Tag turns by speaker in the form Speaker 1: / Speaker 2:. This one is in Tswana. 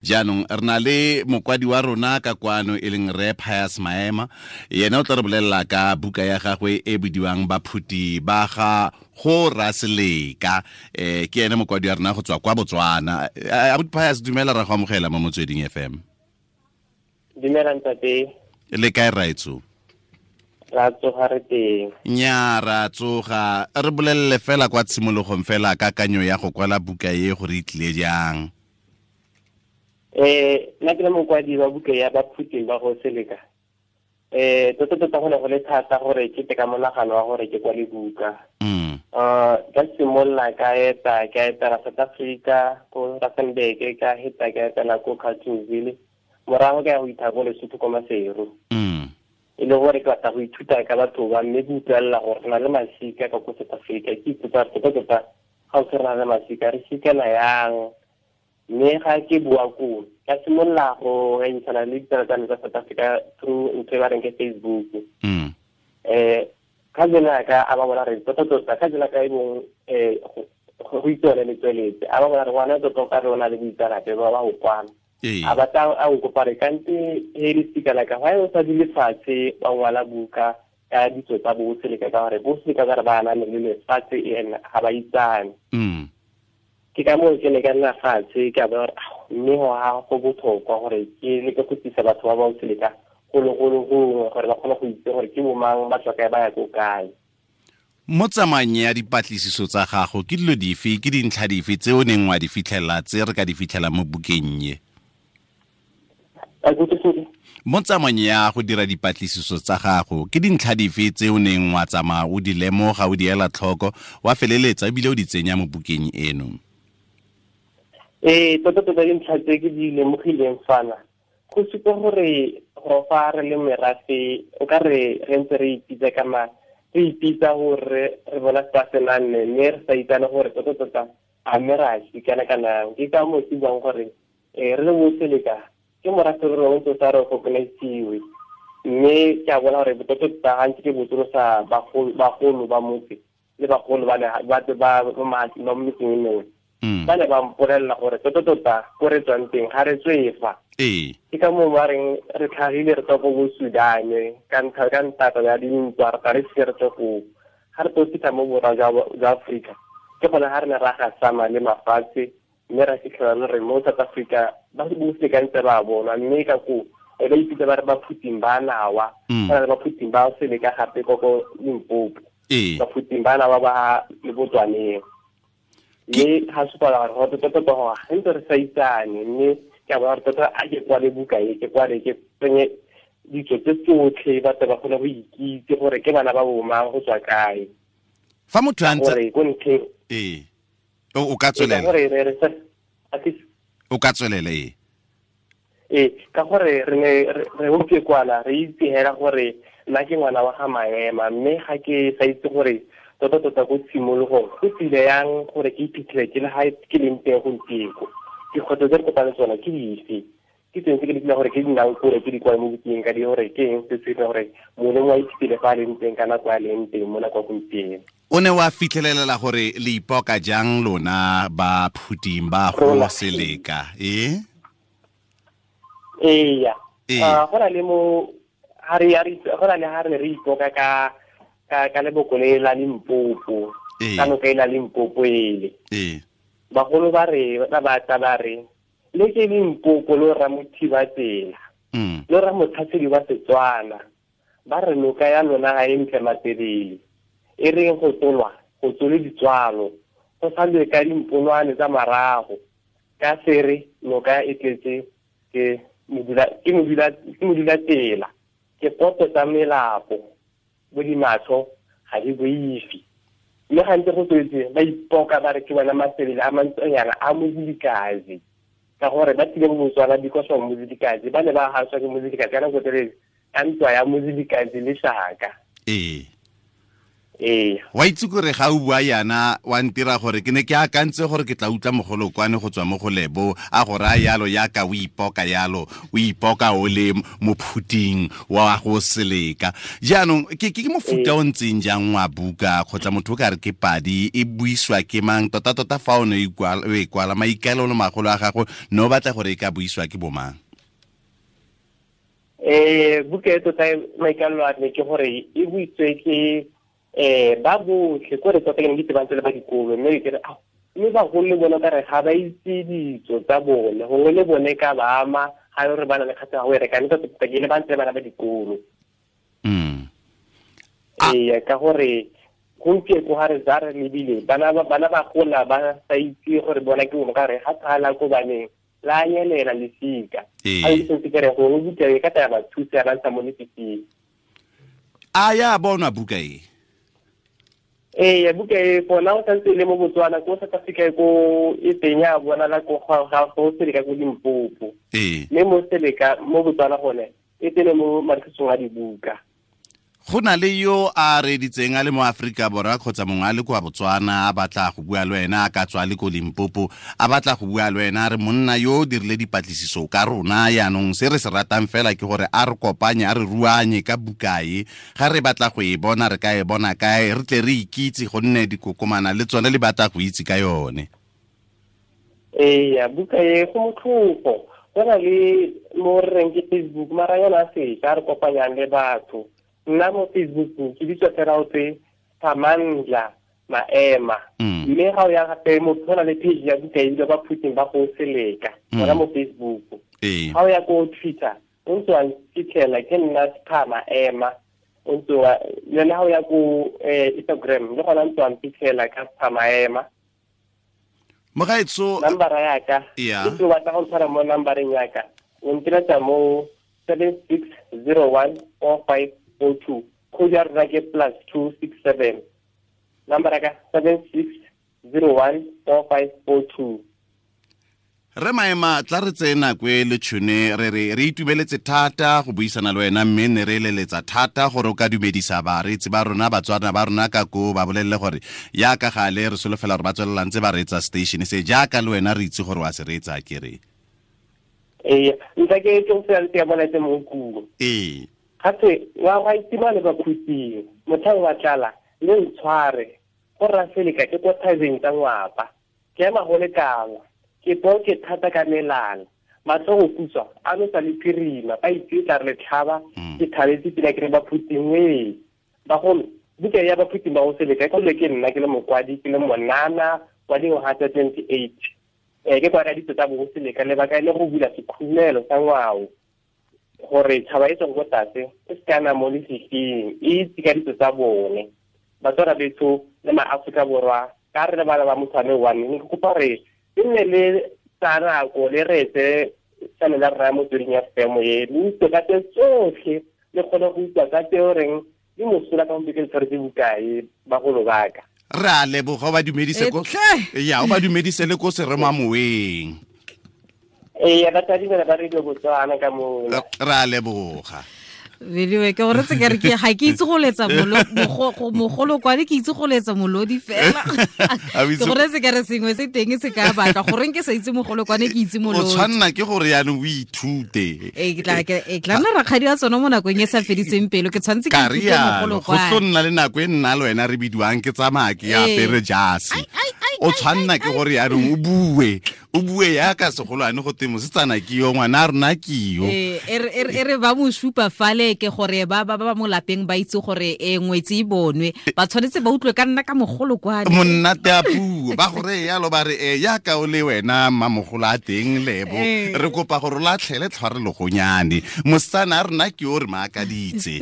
Speaker 1: Jaanong re na le mokwadi wa rona ka kwano e leng Re Pius Maema. Yena o tla re bolelela ka buka ya gagwe e bidiwang Baphuti ba ga go Raseleka. Ke ene mokwadi wa rona go tswa kwa Botswana. Abuti Pius, dumela, ra go amogela mo Motsweding FM.
Speaker 2: Dumela ntate.
Speaker 1: Le kae raetso?
Speaker 2: Ra tsoga, re teng.
Speaker 1: Nya, ra tsoga. Re bolelele fela kwa tshimologong fela kakanyo ya go kwala buka e gore e tlile jang.
Speaker 2: Nna ke le mokwadi wa buka ya Baphuting ba go Seleka. Tota tota go ne go le thata gore ke te ka monagano wa gore ke kwale buka. Ka simolola ka eta, ka etela South Africa, ko Rustenburg, ka heta ka etela ko Carltonville. Morago ka ya go itha ko Lesotho ko Maseru. E le gore ke batla go ithuta ka batho ba, mme ke utlwelela gore re na le masika ka ko South Africa. Ke ipotsa gore tota tota ga o se re na le masika, re sikela yang? Mme ga ke bua koo, ka simolola go ngangisana le ditsala tsa me tsa South Africa through ntho e ba reng ke Facebook. Cousin ya ka a ba bona re tota tota, cousin ya ka e bong, go itse yone letsweletse, a ba bona re ngwana tota o ka re o na le boitseanape ba ba go kwala. A batla a nkopa re kante he le sika la ka, why o sa dule fatshe wa ngwala buka ka ditso tsa bo Seleka, ka gore bo Seleka ka re ba aname le lefatshe ene ga ba itsane. Ke ka moo ke ne ka nna fatshe ka bona gore, ao, mme go ga go botlhokwa gore ke leke go tlisa batho ba ba Seleka golo golo gongwe gore ba kgone go itse gore ke bo mang, ba tswa kae, ba ya ko kae.
Speaker 1: Mo tsamaong ya dipatlisiso tsa gago, ke dilo dife, ke dintlha dife tse o neng wa di fitlhela tse re ka di fitlhela mo bukeng e? Mo tsamaong ya go dira dipatlisiso tsa gago, ke dintlha dife tse o neng wa tsamaya o di lemoga, o di ela tlhoko, wa feleletsa ebile o di tsenya mo bukeng eno?
Speaker 2: Tota tota dintlha tse ke di lemogileng fana, go supa gore go fa re le merafe, o ka re re ntse re ipitsa ka ma, re ipitsa gore re bona se se nang ne, mme re sa itsane gore tota tota a mme ra sikana kana. Ke ka moo ke buang gore, re le bo Seleka, ke morafe re rongwe tota re recognize-iwe. Mme ke a bona gore tota tota gantsi ke botsolosa bagolo ba motse le bagolo ba le, ba, ba, ba, ba, ba mo metseng e mengwe. Ba ne ba mpolelela gore tota tota ko re tswang teng ga re tswe fa. Ke ka moo ba reng re tlhagile re tswa ko bo Sudan, ka ntlha, ka ntata ya dintwa, re tla re se re tswe koo. Ga re tlo fitlha mo borwa jwa Aforika, ke gone ga re ne ra gasama le mafatshe, mme ra fitlhela le re mo South Africa ba se botlhe ka ntse ba bonwa, mme ka koo e ba ipitsa ba re Baphuting ba Nawa. Ba na le Baphuting ba Seleka gape ko ko Limpopo. Baphuting ba Nawa ba le Botswaneng. Mme ga supa gore go tota tota gore ga ntse re sa itsane, mme ke a bona gore tota a ke kwale buka e, ke kwale ke tsenye ditso tse tsotlhe, batho ba kgone go ikitse gore ke bana ba bo mang, go tswa kae.
Speaker 1: Fa motho a ntse
Speaker 2: Gore ko ntlheng
Speaker 1: O, o ka
Speaker 2: Ee, ka
Speaker 1: tswelela.
Speaker 2: gore re, re sa, a ke
Speaker 1: O ka tswelela, ee.
Speaker 2: Ee, ka gore re ne re utlwe kwana, re itse hela gore nna ke ngwana wa ga Maema, mme ga ke sa itse gore tota tota ko tshimologong go tsile yang gore ke iphitlhele ke le ga ke leng teng gompieno. Dikgwetlho tse re kopane tsona ke dife? Ke tseng tse ke di gore ke di nang kore ke di kwale mo bukeng ka di gore ke eng se se dirang gore mongwe le mongwe a iphitlhele fa a leng teng ka nako a leng teng mo nako ya gompieno.
Speaker 1: O ne wa fitlhelelela gore le ipoka jang lona ba Phuting ba go
Speaker 2: Rona.
Speaker 1: Seleka, e?
Speaker 2: Eya.
Speaker 1: Ee.
Speaker 2: Go na le mo, ha re, ha re, go na le ha re ne re ipoka ka, ka, ka leboko le la Limpopo.
Speaker 1: Ee.
Speaker 2: Ka noka e la Limpopo ele.
Speaker 1: Ee.
Speaker 2: Bagolo ba re, ba ba tla ba re, le ke Limpopo lo ra mothiba tsela. Lo ra motlhasedi wa Setswana. Ba re noka ya lona ga e ntle matelele. E reng go tsolwa, go tsole ditswalo. Go sa lwe ka dimponwane tsa marago. Ka sere noka e tletse ke modula, ke modula, ke modula tsela. Ke poto tsa melapo, bo dimatsho ga di boife. Mme gantsi go tswetse ba ipoka ba re ke bona mafelelo a mantsonyana a Mozilikazi. Ka gore ba tlile mo Botswana because of Mozilikazi, ba ne ba gaswa ke Mozilikazi ka nako telele ka ntwa ya Mozilikazi le Shaka. Ee,
Speaker 1: wa itse kore ga o bua yana wa ntira gore ke ne ke akantse gore ke tla utlwa mogolokwane go tswa mo go Lebo a go raya yalo yaka o ipoka yalo o ipoka o le mophuting wa go Seleka. Jaanong ke mofuta o ntseng jang wa buka kgotsa motho o ka re ke padi e buiswa ke mang tota-tota fa o ne o e kwala maikaelelo magolo a gago ne o batla gore e ka buiswa ke bomang?
Speaker 2: Buka e tota maikaelelo a me ke gore e buiswe ke ba botlhe ko re tota ke ne ke tsebantse le ba dikolo, mme ke re mme bagolo le bone ka re ga ba itse ditso tsa bone, gongwe le bone ka ba ama ga e re ba na le kgatlhego go e reka, mme tota ke le ba ntse le bana ba dikolo. Ee, ka gore gompieno ga re za re lebile bana ba gola ba sa itse gore bona ke bone ka re ga tsala ko baneng la nyelela lesika. A itse ke re gongwe buka e ka tla ba thusa ba ntsha mo lefifing.
Speaker 1: A ya bonwa buka e?
Speaker 2: Ee, buka e for now santse e le mo Botswana, ko South Africa ko e teng ya bonala ko ga go Seleka ko Limpopo. Mme mo Seleka mo Botswana gone e teng mo marekisong a dibuka.
Speaker 1: Go na le yo a reditseng a le mo Aforika Borwa kgotsa mongwe a le kwa Botswana a batla go bua le wena, a ka tswa le ko Limpopo a batla go bua le wena, a re monna yo o dirile dipatlisiso ka rona, yaanong se re se ratang fela ke gore a re kopanye a re ruanye ka bukae, ga re batla go e bona re ka e bona kae, re tle re ikitse gonne dikokomana le tsone le batla go itse ka yone.
Speaker 2: Ee, buka e go motlhofo, go na le mo re reng ke Facebook, mara yona a sešwa a re kopanyang le batho. Nna mo Facebook ke bitswa fela o tse Phamandla Maema. Mme ga o ya gape motho go na le page ya buka e bitswa Baphuting ba go Seleka, gona mo Facebook. Ga o ya ko Twitter o ntse wa fitlhela ke nna Pha Maema, o ntse wa le ga o ya ko Instagram le gona ntse wa fitlhela ka Pha Maema.
Speaker 1: Mogaetso,
Speaker 2: nambara ya ka e tlo batla go tshwara mo nambareng ya ka, o ntiretsa mo 76014542, code ya rona ke +267, number ya ka 76014542.
Speaker 1: Re Maema, tla re tseye nako e le tšhone re re itumeletse thata go buisana le wena, mme ne re eleletsa thata gore o ka dumedisa bareetsi ba rona, Batswana ba rona ka ko ba bolelele gore yaka gale re solofela gore ba tswelela ntse ba reetsa station se jaaka le wena re itse gore wa se reetsa ke re.
Speaker 2: Ee, ntle ke tlo fela ke bona tse mo kulo.
Speaker 1: Ee.
Speaker 2: Gape wa ga itima le bakhutsing, mothang wa tlala le ntshware go ra Seleka ke ko thabeng tsa ngwapa, ke ema go lekana, ke po ke thata ka melala, matlho go kutswa a no sa le phirima, ba itse tla re tlhaba, ke thabetse pila ke re Baphuting we. Bagolo, buka ya Baphuting ba go Seleka ke le ke nna ke le mokwadi, ke le monana wa dingwaga tsa 28. Ke kwa ditso tsa bo Seleka, lebaka e le go bula sekhumelo sa ngwao gore tšhaba e tswang ko tlase e se kana mo lefifing, e itse ka ditso tsa bone. Batswana betho le maAforika Borwa ka re le bana ba motho a le one, ne ke kopa gore e nne le tsa nako le reetse channel ya rona Motsweding FM e, le utlwe ka tse tsotlhe, le kgone go utlwa ka tse o reng di mosola ka gompieno ke tshwaretse bokae bagolo ba ka.
Speaker 1: Re a leboga, o ba dumedise ko ya, o ba dumedise le ko seremamoweng.
Speaker 2: Ee, batsadi bana ba Radio Botswana ka mo.
Speaker 1: Re a leboga.
Speaker 3: Beliwe ke gore tse ke re ke ga ke itse go letsa mogolokwane, ke itse go letsa molodi fela. Ke gore tse ke re sengwe se teng se ka batla goreng ke sa itse mogolokwane, ke itse molodi.
Speaker 1: O tshwanna ke gore yaanong o ithute.
Speaker 3: Ee, ke tla nna rakgadi wa tsone mo nakong e sa fediseng pelo, ke tshwanetse ke ithute mogolokwane.
Speaker 1: Go tlo nna le nako e nna le wena re bidiwang ke tsamaya ke apere jase. O tshwanna ke gore yaanong o bue, o bue yaka segolwane go teng mosetsana ke yo, ngwana a rona ke yo.
Speaker 3: E re ba mo supa fale ke gore ba ba ba mo lapeng ba itse gore e ngwetse e bonwe, ba tshwanetse ba utlwe ka nna ka mogolokwane.
Speaker 1: Monnate a puo ba gore yalo ba re e yaka o le wena mmamogolo a teng Lebo, re kopa gore o latlhele tlhware legonyane, mosetsana a rona ke yo re maakaditse.